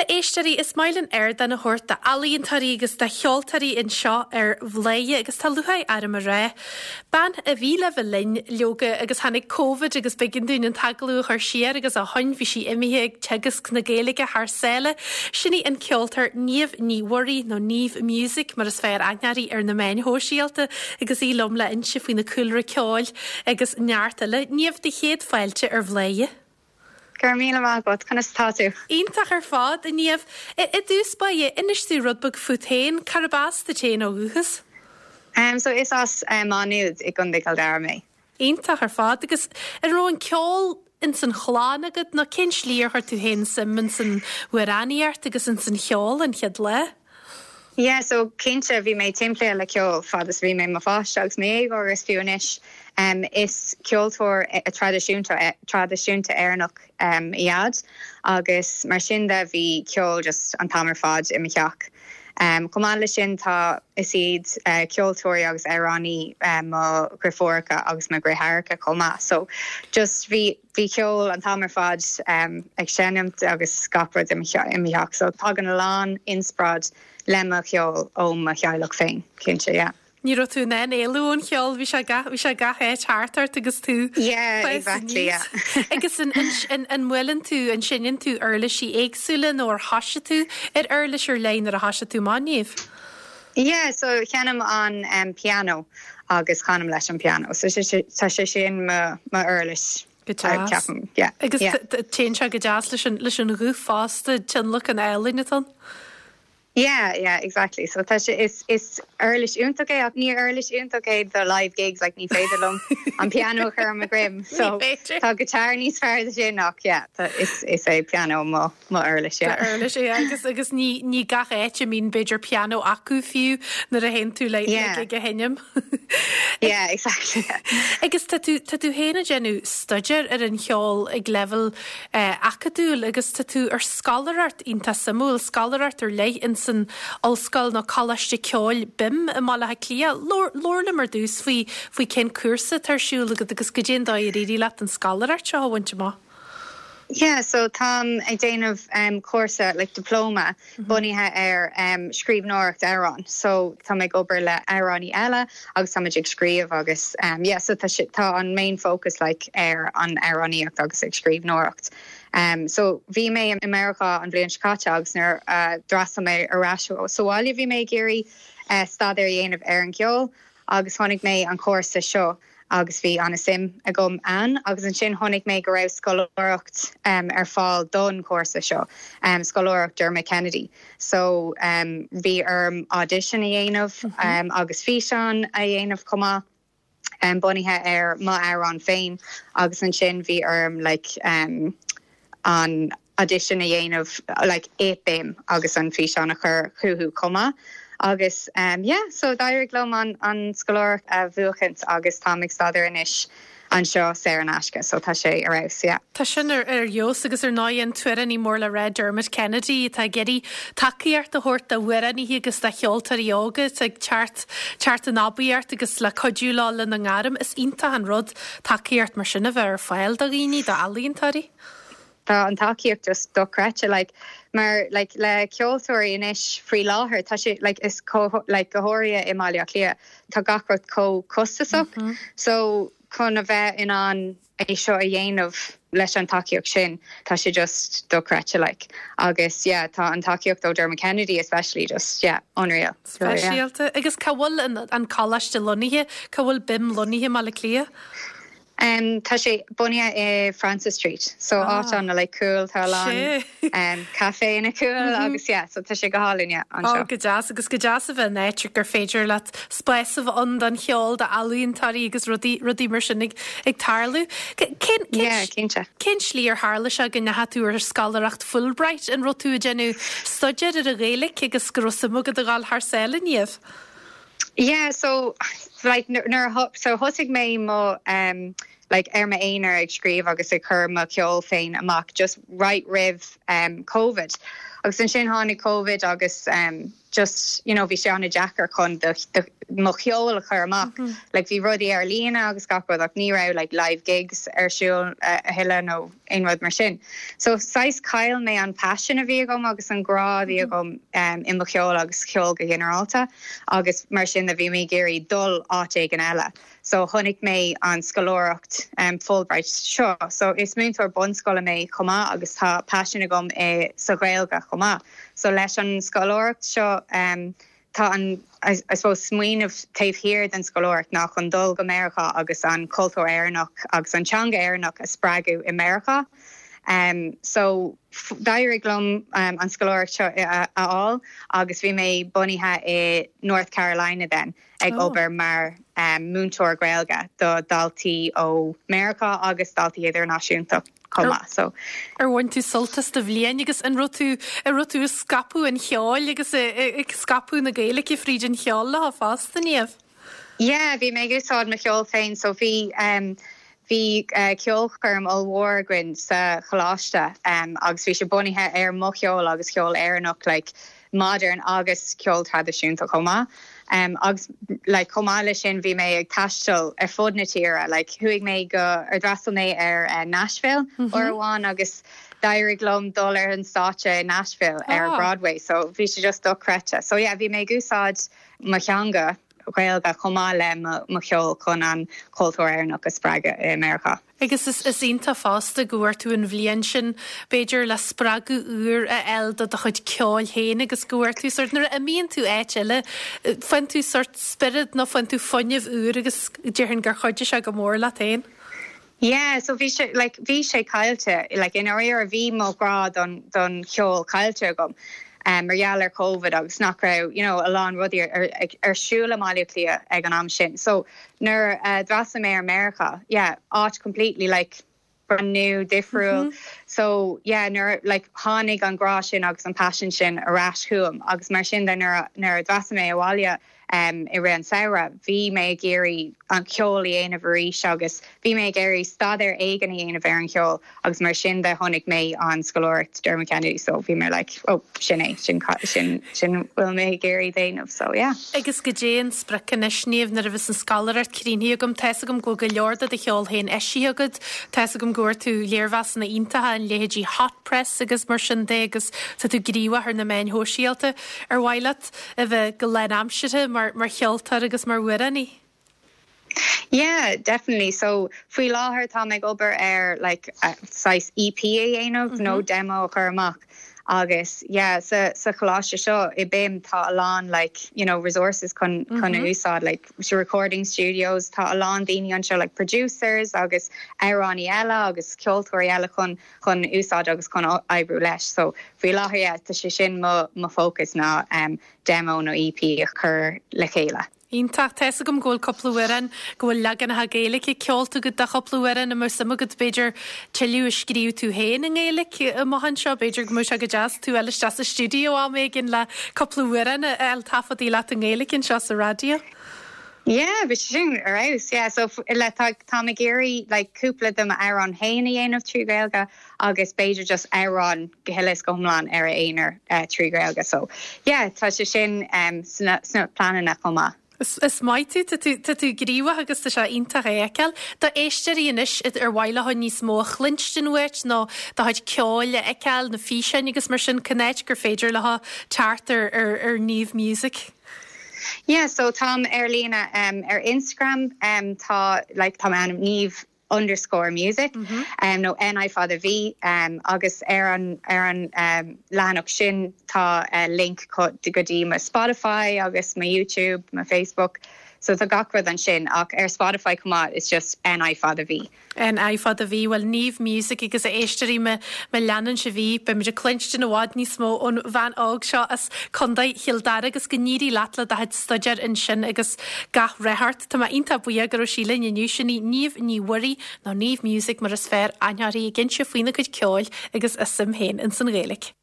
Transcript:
Bhuel, a éisteoirí, is maith linn ardán a thabhairt d'ealaíontóirí agus do cheoltóirí anseo ar Bhladhaire agus tá lúcháir orm a rá, bean a bhí le bheith linn, leoga, agus tháinig Covid agus b'éigean dúinn an t-agallamh a chur siar agus ó shoin bhí sí imithe ag teagasc na Gaeilge thar sáile. Sin í an ceoltóir Niamh Ní Mhuirí, nó Niamh Music mar is fearr aithne uirthi ar na meáin shóisialta agus í liom le inse faoina cúlra ceoil agus neart eile. Niamh, do chéad fáilte ar Bhladhaire. Go raibh míle maith agat. Conas atá tú? Iontach ar fad, a Niamh. I dtús báire, inis dúinn rud beag fút féin. Cárb as duit féin ó dhúchas? So is as Má Nuad i gContae Chill Dara mé. Iontach ar fad. Agus an raibh an ceol ins an chlann agat nó cén slí ar chuir tú féin suim ins an amhránaíocht agus ins an cheol an chéad lá? Yeah so cinnte bhí mé timpeallaithe le ceol fad is a bhí mé i mo pháiste agus mo dhéagóir agus fiú anois. Is ceoltóir traidisiúnta traidisiúnta Éireannach mo Dhaid agus mar sin de bhí ceol just an t-am ar fad i mo theach. Chomh maith leis sin tá is iad ceoltóirí agus amhránaí mo dheirfiúracha agus mo dheartháireacha chomh maith so just bhí Bhí ceol an t-am ar fad ag seinm agus gach rud i mo theach so tagann a lán inspioráid le mo cheol ó mo theaghlach féin, cinnte, yeah. Ní raibh tú in ann éalú ón cheol, bhí sé gach, bhí sé gach áit thart ort agus tú Yeah, exactly, yeah. Agus an, an, an mbuaileann tú, an seinneann tú uirlisí éagsúla nó ar thoisigh tú ar uirlis ar leith nuair a thoisigh tú amach, Niamh? Yeah, so seinnim an pianó agus canaim leis an pianó. So tá sé sin mo uirlis. Go deas. Ceapaim, yeah. Agus téann sé go deas leis an leis an ghuth fosta, tionlacan álainn atá ann. Yeah, yeah, exactly. So tá sé, is, is uirlis iontach é ach ní uirlis iontach é do live gigs, like ní féidir liom an pianó a chur ar mo dhroim. So tá guitar níos fearr do sin ach yeah, tá, is, is é pianó mo. Mo uirlis, yeah. Do uirlis, yeah. Agus, agus ní, ní gach áit a mbíonn b'fhéidir pianó acu fiú nuair a théann tú le, Yeah. le gig a sheinm. Yeah, exactly. Agus tá tú, tá tú féin ag déanamh staidéar ar an cheol ag leibhéal eh, acadúil agus tá tú ar scoláireacht iontach suimiúil, scoláireacht ar leith ins an Ollscoil nó Coláiste Ceoil BIMM i mBaile Átha Cliath. Labhair, labhair liom ar dtús faoi, faoi cén cúrsa atá ar siúl agat agus goidé an dóigh ar éirigh leat an scoláireacht seo a bhaint amach. Yeah, so táim ag déanamh cúrsa, like diploma, bunaithe ar scríbhneoireacht amhrán. So táim ag obair le amhránaí eile agus táimid ag scríobh agus yeah, so tá sé, tá an main focus like ar an amhránaíocht agus ag scríbhneoireacht. So bhí mé i Meiriceá an bhliain seo caite agus nuair a d'fhreastail mé ar ais sa bhaile bhí mé ag iarraidh staidéar a dhéanamh ar an gceol agus chonaic mé an cúrsa seo. agus bhí an-suim agam ann agus ansin chonaic mé go raibh scoláireacht ar fáil don chúrsa seo, scoláireacht Dermot Kennedy. So bhí orm audition a dhéanamh agus físeán a dhéanamh chomh maith bunaithe ar m'amhrán féin agus ansin bhí orm like an audition a dhéanamh like i BIMM agus an físeán a chur chucu chomh maith agus yeah so d'éirigh liom an an scoláireacht a bhuachaint agus táim ag staidéar anois anseo saor in aisce so tá sé ar fheabhas yeah. Tá sin ar ar fheabhas agus ar ndóigh an t-amhránaí mór le rá Dermot Kennedy atá ag iarraidh tacaíocht a thabhairt d'amhránaithe agus do cheoltóirí óga atá ag teacht teacht in aibíocht agus le cuidiú leo lena ngairm. Is iontach an rud tacaíocht mar sin a bheith ar fáil do dhaoine, d'ealaíontóirí. Tá an tacaíocht just dochreidte like mar like le ceoltóirí anois faoi láthair tá sé like is chomh like go háirithe i mBaile Átha Cliath tá gach rud chomh costasach so chun a bheith in ann é seo a dhéanamh leis an tacaíocht sin tá sé just dochreidte like agus yeah tá an tacaíocht ó Dermot Kennedy especially just yeah unreal. Speisialta. Agus cá bhfuil an an coláiste lonnaithe? Cá bhfuil BIMM lonnaithe i mBaile Átha Cliath? Tá sé bunaithe i Francis Street, so áit ana like cool, tá a lán caiféanna cool agus yeah, so tá sé go hálainn yeah anseo. Oh go deas, agus go deas a bheith in áit gur féidir leat spás a bheith ann don cheol, d'ealaíontóirí agus rudaí, rudaí mar sin ag, ag tarlú. Cén, cén, Yeah, cinnte. cén slí ar tharla sé go ndeachaigh tú ar scoláireacht Fulbright? An raibh tú ag déanamh staidéar ar an Ghaeilge agus go raibh suim agat a dhul thar sáile, Niamh? Yeah so like nuair a so thosaigh mé mo um like ar m'aonar ag scríobh agus ag cur mo cheol féin amach just right roimh um Covid. Agus ansin tháinig Covid agus um just you know bhí sé an-deacair chun do do mo cheol a chur amach. Like bhí rudaí ar líne agus gach rud ach ní raibh like live gigs ar siúl a thuilleadh nó aon rud mar sin. So saghas chaill mé an passion a bhí agam agus an grá a bhí agam um i mo cheol agus ceol go ginearálta agus mar sin de bhí mé ag iarraidh dul áit éigin eile. So chonaic mé an scoláireacht Fulbright seo. So is múinteoir bunscoile mé chomh maith agus tá paisean agam i sa Ghaeilge chomh maith. So leis an scoláireacht seo tá an I suppose smaoineamh taobh thiar den scoláireacht ná chun dul go Meiriceá agus an cultúr Éireannach agus an teanga Éireannach a spreagadh i Meiriceá. So d'éirigh liom an scoláireacht seo a fháil agus bhí mé bunaithe i North Carolina then. ag obair mar múinteoir Gaeilge do dhaltaí ó Meiriceá agus daltaí idirnáisiúnta chomh maith. So. Ar bhain tú sult as do bhliain agus an raibh tú, an raibh tú ag scaipeadh an cheoil agus ag scaipeadh na Gaeilge fríd an cheol leo fosta, Niamh? Yeah, bhí mé ag úsáid mo cheol féin so bhí bhí ceolchoirm ollmhór againn sa choláiste agus bhí sé bunaithe ar mo cheol agus ceol Éireannach like modern agus ceol traidisiúnta chomh maith. Agus like chomh maith leis sin bhí mé ag taisteal ar fud na tíre like chuaigh mé go ar d'fhreastail mé ar Nashville uair amháin agus d'éirigh liom dul ar an stáitse i Nashville ar Broadway so bhí sé just dochreidte. So yeah bhí mé ag úsáid mo theanga Ghaeilge chomh maith le mo cheol chun an cultúr Éireannach a spreagadh i Meiriceá. Agus is is iontach fosta go bhfuair tú an bhliain sin, b'fhéidir, le spreagadh úr a fháil do do chuid ceoil féin agus go bhfuair tú sórt, nuair a imíonn tú áit eile, faigheann tú sórt spiorad nó faigheann tú fuinneamh úr agus déarfainn gur chuidigh sé go mór leat féin. Yeah, so bhí sé, like, bhí sé caillte, like, i ndáiríre bhí mo ghrá don, don cheol caillte agam um, mar gheall ar Covid agus nach raibh, you know, a lán rudaí ar, ar, ar siúl i mBaile Átha Cliath ag an am sin. So nuair a d'fhreastail mé ar Meiriceá, yeah, áit completely, like, brand new, difriúil. So yeah, nuair, like, tháinig an grá sin agus an passion sin ar ais chugam agus mar sin de nuair, nuair a d'fhreastail mé abhaile, i rith an samhradh. Bhí mé ag iarraidh an ceol a dhéanamh arís agus bhí mé ag iarraidh staidéar éigin a dhéanamh ar an cheol agus mar sin de chonaic mé an scoláireacht Dermot Kennedy so bhí mé like oh sin é, sin sin sin bhfuil mé ag iarraidh déanamh so yeah. Agus goidé an sprioc anois, Niamh, nuair a bheas an scoláireacht críochnaithe agam, tá's agam go bhfuil go leor de do cheol féin eisithe agat, tá's agam go bhfuair tú léirmheasanna iontacha in leithéidí Hot Press agus mar sin de agus tá tú gníomhach ar na meáin shóisialta. Ar mhaith leat a bheith go lánaimseartha mar mar cheoltóir agus mar amhránaí? Yeah, definitely. So faoi láthair táim ag obair ar like saghas EP a dhéanamh nó demo a chur amach agus yeah sa sa choláiste seo i BIMM tá a lán like you know resources chun chun a úsáid like recording studios tá a lán daoine anseo like producers agus amhránaí eile agus ceoltóirí eile chun chun úsáid agus chun oibriú leis. So faoi láthair yeah tá sé sin mo mo focus ná demo nó EP a chur le chéile. Iontach. Tá's agam go bhfuil cúpla amhrán, go bhfuil leaganacha Gaeilge ceolta agat de chúpla amhrán. An mbeadh suim agat b'fhéidir tuilleadh a scríobh tú féin i nGaeilge amach anseo? B'fhéidir go mbeadh sé go deas tú a fháil isteach sa stiúideo am éigin le cúpla amhrán a fháil taifeadtaí leat i nGaeilge anseo sa raidió. Yeah, bhí sé sin ar fheabhas, yeah. So le tá táim ag iarraidh like cúpla de m'amhráin féin a dhéanamh trí Ghaeilge agus b'fhéidir just amhrán go huile is go hiomlán ar a aonar trí Ghaeilge. So yeah, tá sé sin sna sna pleananna chomh maith. Is is maith tú, tá tú tá tú gníomhach agus tá sé iontach a fheiceáil. Do éisteoirí anois ar mhaith leo níos mó a chluinstin uait nó do chuid ceoil a fheiceáil, na físeáin agus mar sin, cá háit gur féidir leo teacht ar ar ar Niamh Music? Yeah so táim ar líne um ar Instagram um tá like tá m'ainm Niamh underscore music um nó N I fada V um agus ar an ar an um leathanach sin tá uh link go dtí mo Spotify agus mo YouTube, mo Facebook so tá gach rud ansin ach ar Spotify chomh maith it's just N I fada V. N I fada V, bhuel Niamh Music agus a éisteoirí má leanann sibh í, beimid ag cluinstin i bhfad níos mó ón bhean óg seo as Contae Chill Dara agus go n-éirí leat le do chuid staidéir ansin agus gach rath ort. Tá mé iontach buíoch go raibh sí linn inniu, sin í Niamh Ní Mhuirí nó Niamh Music mar is fearr aithne uirthi ag inse faoina cuid ceoil agus a suim féin ins an Ghaeilge.